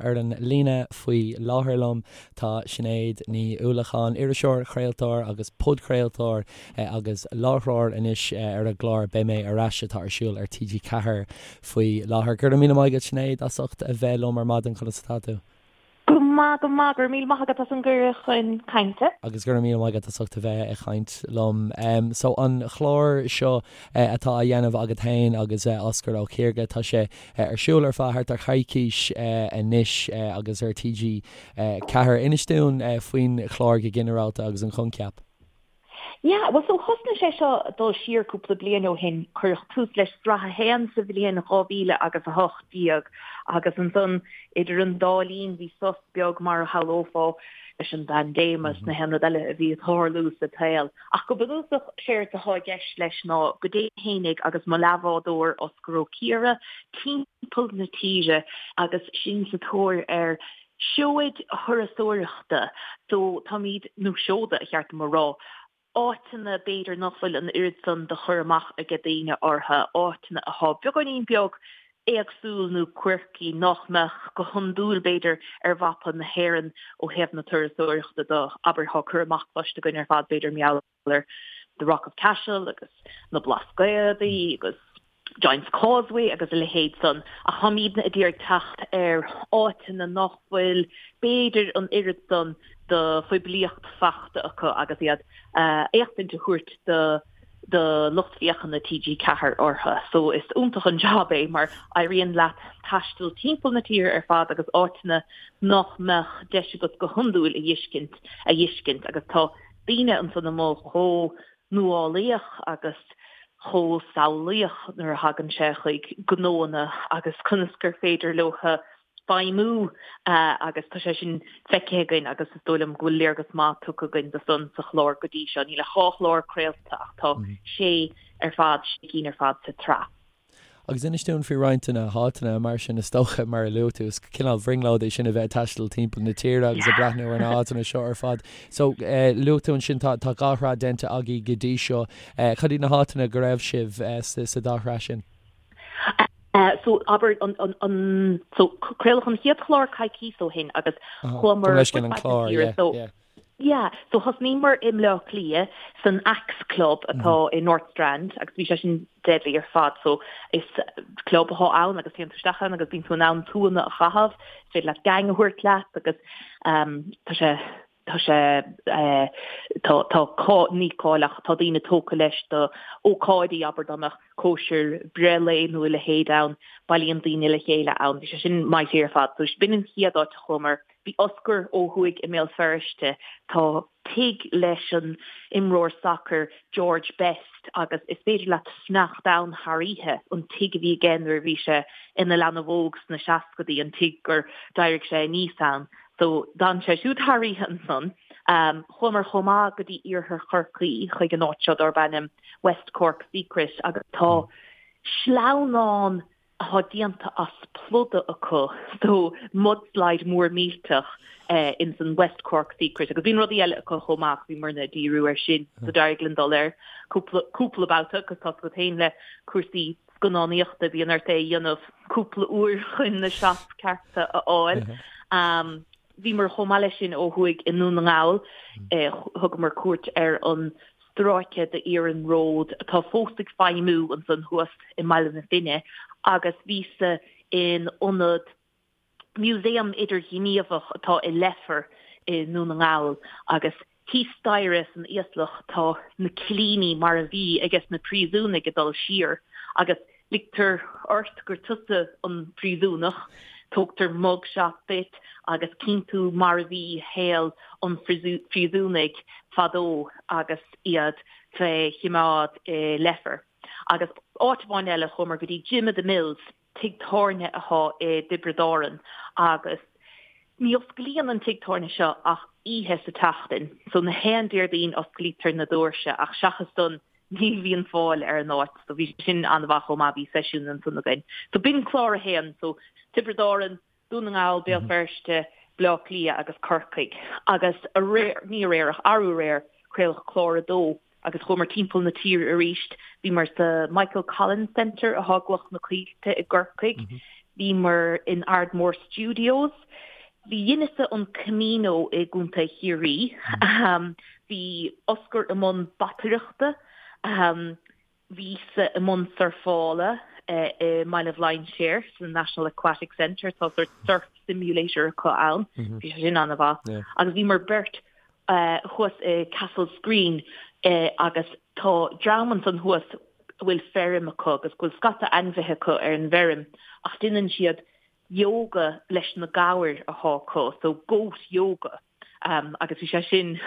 Ar an líne faoi láthair liom tá Sinéad Ní Uallacháin, iriseoir, craoltóir agus podchraoltóir agus láithreoir anois ar an gclár Beidh Mé Ar Ais atá ar siúl ar TG4 faoi láthair. Go raibh míle maith agat Sinéad as ucht a bheith liom ar maidin, conas atá tú? Go maith, go maith. Go raibh míle maith agat as an gcuireadh chun cainte. Agus go raibh míle maith agat as ucht a bheith ag caint liom. So an chlár seo atá á dhéanamh agat féin agus Osgur Ó Ciardha, tá sé ar siúl ar feadh thart ar choicís anois agus ar TG4. Inis dúinn faoin chlár go ginearálta agus an coincheap. Yeah, bhuel so thosnaigh sé seo ag dul siar cúpla bliain ó shin, cuireadh tús leis sraith a haon sa bhliain 2000 agus 18 agus ansan idir an dá linn bhí sos beag mar a shamhlófá leis an bpaindéim agus na haon rud eile a bhí ag tarlú sa tsaol. Ach go bunúsach séard atá i gceist leis ná go dtéim fhéinig agus mo leathbhádóir Osgur Ó Ciardha timpeall na tíre agus sinn sa tóir ar seoid thurasóireachta so táimid, nó seoda a cheart dom a rá, áiteanna b'fhéidir nach bhfuil an oiread san de chur amach aige daoine orthu, áiteanna athá beagáinín beag éagsúil nó quirky nach mbeadh go hiondúil b'fhéidir ar mhapa na hÉireann ó thaobh na turasóireachta de, abair thá cur amach cloiste againn ar fad b'fhéidir mar gheall ar The Rock of Cashel agus na Blascaodaí agus Giant's Causeway agus a leithéid san, ach táimidne ag iarraidh teacht ar áiteanna nach bhfuil b'fhéidir an oiread san de phoiblíocht fachta acu agus iad éachtaint a thabhairt do do lucht féachana TG4 orthu. So is iontach an job é mar éiríonn leat taisteal timpeall na tíre ar fad agus áiteanna nach mbeadh deis agat go hiondúil a fheiscint a fheiscint agus tá daoine ansan amuigh chomh nuálaíoch agus chomh samhlaíoch nuair a thagann sé chuig gnóanna agus conas gur féidir leo feidhmiú agus tá sé sin feicthe againn agus is dóigh liom go bhfuil léargas maith tugtha againn de san sa chlár go dtí seo. Níl ach dhá chlár craolta ach tá sé ar fad, sé cinn ar fad sa tsraith. Agus inis dúinn faoi roinnt de na háiteanna mar sin, is dócha, mar a luaigh tú, is cineál brionglóid é sin a bheith ag taisteal timpeall na tíre agus ag breathnú ar na háiteanna seo ar fad. So, luaigh tú ansin tá tá dhá shraith déanta agaibh go dtí seo. Cad iad na háiteanna go raibh sibh sa dá shraith sin? So, abair, an, an, an, so, craoladh an chéad chlár coicís ó shin agus chuamar fud fad na tíre, so, Yeah, so thosnaíomar i mBleá Cliath san Axe Club atá i North Strand agus bhí sé sin deadly ar fad. So is club atá ann agus téann tú isteach ann agus bíonn tú in ann tuanna a chaitheamh, is féidir leat gang a thabhairt leat agus um, tá sé tá sé eh, tá tá cá ní cáil ach tá daoine tógtha leis do ócáidí abair dá mbeadh cóisir breithlae nó a leithéid ann, bailíonn daoine le chéile ann. Bhí sé sin mighty ar fad. So b'in an chéad áit a chuamar. Bhí Osgur ó thuaidh i mBéal Feirste. Tá tigh leis an imreoir sacair George Best agus is féidir leat fanacht ann thar oíche, an tigh a bhí aige nuair a bhí sé ina leanbh óg sna seascadaí, an tigh gur d'éirigh sé aníos ann. So d'fhan sé siúd thar oíche ansan. Chuamar chomh maith go dtí iarthar Chorcaí chuig an áit seo darb ainm West Cork Secret agus tá sleamhnán atá déanta as pluda acu, so mudslide mór millteach ins an West Cork Secret agus bíonn rudaí eile acu chomh maith ach bhíomarna ag díriú air sin so d'éirigh linn dul air cúpla cúpla babhta agus tá a fhios agat féin le cúrsaí scannánaíochta bíonn ort é a dhéanamh cúpla uair chun na shots cearta a fháil. Bhíomar chomh maith leis sin ó thuaidh i nDún na nGall, thugamar cuairt ar an stráice d'iarnród atá fós ag feidhmiú ansan thuas i mBaile na Finne agus bhíos-sa in ionad museum idirghníomhach atá i Leifear i nDún na nGall agus thíos staighre san íoslach tá na cillíní mar a bhí ages na príosúnaigh ag dul siar agus Ligtear ort gur tusa an príosúnach, tógtar mug shot duit agus cíonn tú mar a bhí shaol an phríosúnaigh fadó agus iad fé chimeád i Leifear. Agus áit amháin eile, chuamar go dtí Jim of the Mills, tigh tábhairne athá i dTiobraid Árann agus ní osclaíonn an tigh tábhairne seo ach oíche sa tseachtain, so na haon Déardaoin osclaítear na doirse ach seachas san ní bhíonn fáil ar an áit so bhí sin an-mhaith chomh maith, bhí seisiún ansan againn. So b'in clár a haon, so Tiobraid Árann, Dún na nGall, Béal Feirste, Bleá Cliath agus Corcaigh. Agus aréir, ní aréir ach arú aréir, craoladh clár a dó agus chuamar timpeall na tíre arís. Bhíomar sa Michael Collins Centre athá i gCloich na Coillte i gCorcaigh. Bhíomar in Ardmore Studios. Bhí dheineas-sa an Camino i gContae Chiarraí. Bhí Osgur i mbun bataireachta. Bhíos-sa i mbun surfála i mBaile Bhlainséir sa National Aquatic Centre. Tá sórt surf simulator acu ann. Bhí sé sin an-mhaith. Agus bhíomar beirt thuas i Castle Screen agus tá dream ansan thuas a bhfuil feirm acu agus go bhfuil scata ainmhithe acu ar an bhfeirm ach déanann siad yoga leis na gabhair athá acu, so goat yoga. Agus bhí sé sin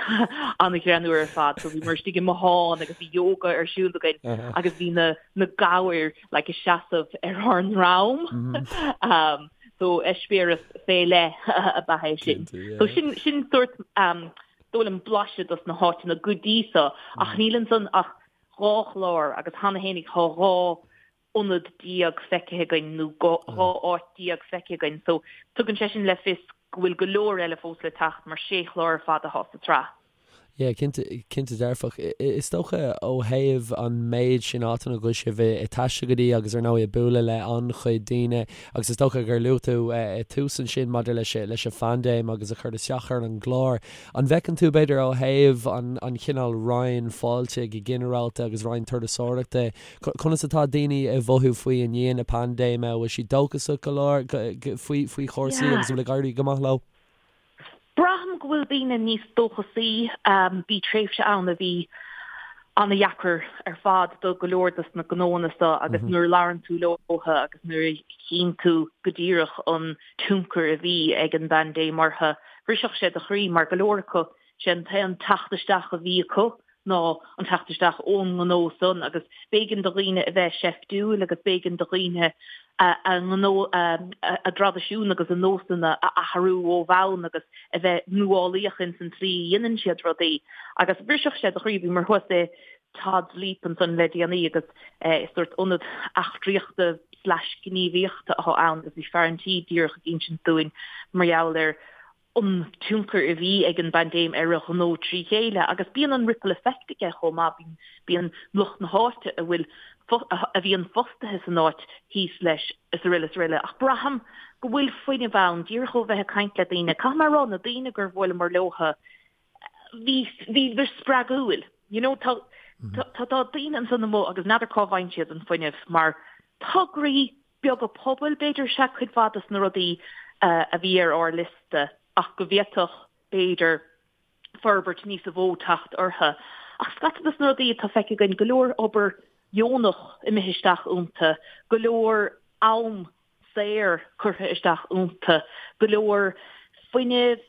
an-ghreannmhar ar fad. So bhíomar istigh i mbothán agus bhí yoga ar siúl againn agus bhí na na gabhair like ag seasamh ar ár ndroim. So eispéireas fé leith ab ea é sin. So sin sin sórt dóigh liom blaiseadh dos na háiteanna go dtí so ach níl ansan ach 2 chlár agus cheana fhéinig thá 12 ionad feicthe againn nó 12 áit feicthe againn so tugann sé sin le fios go bhfuil go leor eile fós le teacht mar sé chlár ar fad athá sa tsraith. Yeah, cinnte, cinnte dearfach. Is dócha ó thaobh an méid sin áiteanna go bhfuil sibh ag taisteal go dtí agus ar ndóigh ag bualadh le an-chuid daoine agus is dócha gur luaigh tú i tús ansin maidir leis leis an phaindéim agus a chur isteach ar an gclár. An bhfeiceann tú b'fhéidir ó thaobh an an chineál Roinn fáilte go ginearálta agus Roinn turasóireachta, conas atá daoine ag mhothú faoi i ndiaidh na paindéime? An bhfuil siad dóchasach go leor faoi faoi chúrsaí agus an bhfuil ag éirí go maith leo? Braithim go bhfuil daoine níos dóchasaí. Bhí tréimhse ann a bhí an-dheacair ar fad do go leor dos na gnóanna seo agus nuair a labhrann tú leo agus nuair a chíonn tú go díreach an tionchar a bhí ag an bpaindéim orthu, bhrisfeadh sé do chroí mar go leor acu, sé an t-aon teacht isteach a bhí acu ná an teacht isteach ón ngnó san agus b'éigean do dhaoine a bheith seiftiúil agus b'éigean do dhaoine a ngnó, a dtraidisiún agus a nósanna a athrú ó bhonn agus a bheith nuálaíoch ins an tslí a dhéanann siad rudaí. Agus bhrisfeadh sé do chroí, bhíomar thuas i Todd's Leap ansan le déanaí agus is sórt ionad eachtraíochta slash gníomhaíochta atá ann agus bhí fear an tí díreach ag insint dúinn mar gheall ar an tionchar a bhí ag an bpaindéim ar a ghnó trí chéile agus bíonn an ripple effect aige chomh maith, bíonn, bíonn lucht na háite a bhfuil, a bhíonn fostaithe san áit thíos leis is araile is araile. Ach braithim go bhfuil fuinneamh ann, díreach ó bheith ag caint le daoine, caithfidh mé a rá, na daoine gur bhuaileamar leotha, bhí, bhíodar spreagúil. You know, tá, tá, tá daoine ansan amuigh agus n'fheadar cá bhfaigheann siad an fuinneamh mar tograí beaga pobail, b'fhéidir, is ea cuid mhaith dos na rudaí a bhí ar ár liosta ach go bhféadfadh, b'fhéidir, forbairt níosa mhó teacht orthu. Ach scata dos na rudaí atá feicthe againn, go leor obair dheonach imithe isteach iontu, go leor am saor curtha isteach iontu, go leor fuinnimh,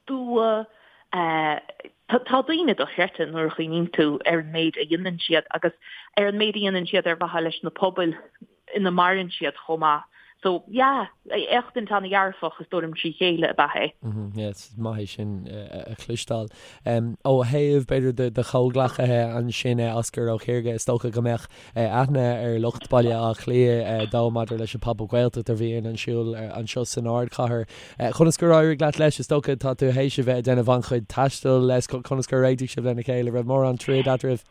dua, tá daoine dochreidte nuair a chuimhníonn tú ar an méid a dhéanann siad agus ar an méid a dhéanann siad ar mhaithe leis na pobail ina maireann siad chomh maith. So, yeah, éachtaint an-dhearfach is dóigh liom trí chéile ab ea é. Yeah, is maith é sin a chloisteáil. Ó thaobh, b'fhéidir, do do chomhghleacaithe ansin, Osgur Ó Ciarga, is dócha go mbeadh aithne ar lucht Baile Átha Cliath dó maidir leis an Pop-Up Gaeltacht a bhíonn ar siúl anseo san ardchathair. Conas gur éirigh leat leis? Is dócha tá tú théis a bheith ag déanamh an-chuid taistil leis, conas gur réitigh sibh lena chéile? Raibh mórán troid eadraibh?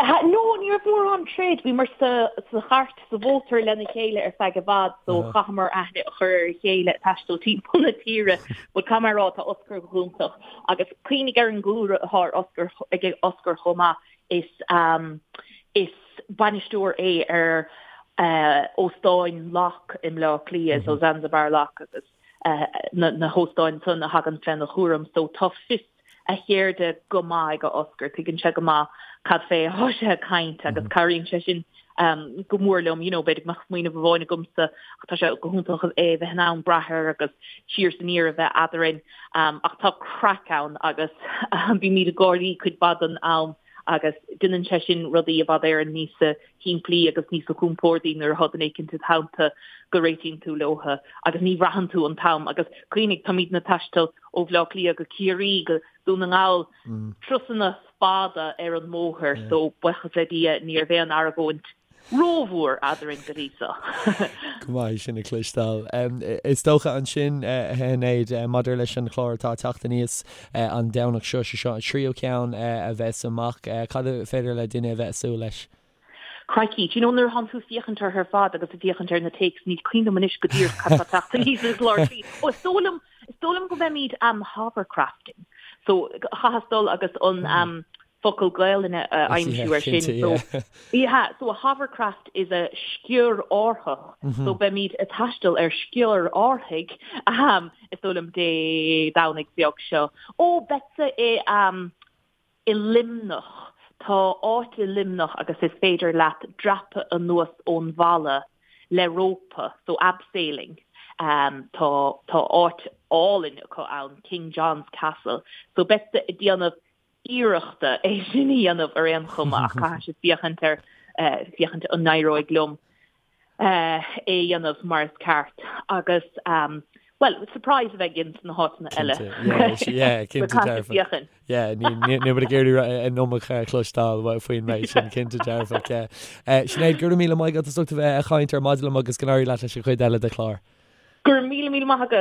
No, ní raibh mórán troid. Bhíomar sa chairt, sa mhótar lena chéile ar feadh i bhfad so chaitheamar aithne a chur ar a chéile ag taisteal timpeall na tíre. But caithfidh mé a rá, tá Osgur go hiontach agus cuimhnigh ar an gcúlra atá ar Osgur, ag Osgur chomh maith, is is bainisteoir é ar Óstáin Locke i mBleá Cliath, so Zanzibar Locke agus na hóstáin san a thagann féna chúram so tá fios a cheirde go maith ag Osgur, tuigeann sé go maith cad fé atá sé ag caint agus cabhraíonn sé sin go mór liom, you know, b'fhéidir go mbeadh smaoineamh amháin agamsa ach tá sé go hiontach é a bheith in ann brath air agus siar is aniar a bheith eadrainn ach tá craic ann agus bímid ag gáirí cuid mhaith den am agus déanann sé sin rudaí i bhfad Éireann níosa shimplí agus níosa compórdaí nuair atá duine éicint id theannta go réitíonn tú leotha agus ní bhraitheann tú an t-am agus cuimhnigh táimidne ag taisteal ó Bhleá Cliath go Ciarraí go Dún na nGall turasanna fada ar an mbóthar so buíochas le Dia ní raibh aon argóint rómhór eadrainn go dtí so. Go maith é sin a chloisteáil. Is dócha ansin, a Shinéad, maidir leis an chlár atá ag teacht aníos an Domhnach seo, sé seo an tríú ceann a bheas amach, cad is féidir le duine a bheith ag súil leis? Crikey, do you know nuair a thánn tú ag féachaint orthu ar fad agus ag féachaint ar na takes, níl cuimhne agam anois go díreach cad tá teacht aníos ar an gclár slí. Ó, is dóigh liom, is dóigh liom go mbeimid um, hovercrafting. So, chaitheas dul agus an um, focal Gaelainne a aimsiú ar sin. So, yeah, so a hovercraft is a sciorr-árthach. So beimid ag taisteal ar sciorr-árthaigh, um, is dóigh liom Dé Domhnaigh beag seo. Ó, beadsa i um, i Luimneach. Tá áit i Luimneach agus is féidir leat dreapadh anuas ón bhalla le rópa, so abseiling. Um, tá, tá áit álainn acu ann, King John's Castle. So beadsa ag déanamh iarrachta é sin a dhéanamh ar aon chuma ach caithfidh siad féachaint ar féachaint an n-éireoidh liom é a dhéanamh mar is ceart agus bhuel surprise a bheidh ins na háiteanna eile. Cinnte dearfa. Níl muid ag iarraidh an iomarca a chloisteáil faoin méid sin cinnte dearfach. Sinéad, go raibh míle maith agat as ucht a bheith ag caint ar maidin liom agus go n-éirí leat leis an chuid eile de chlár. Go raibh míle míle maith agat.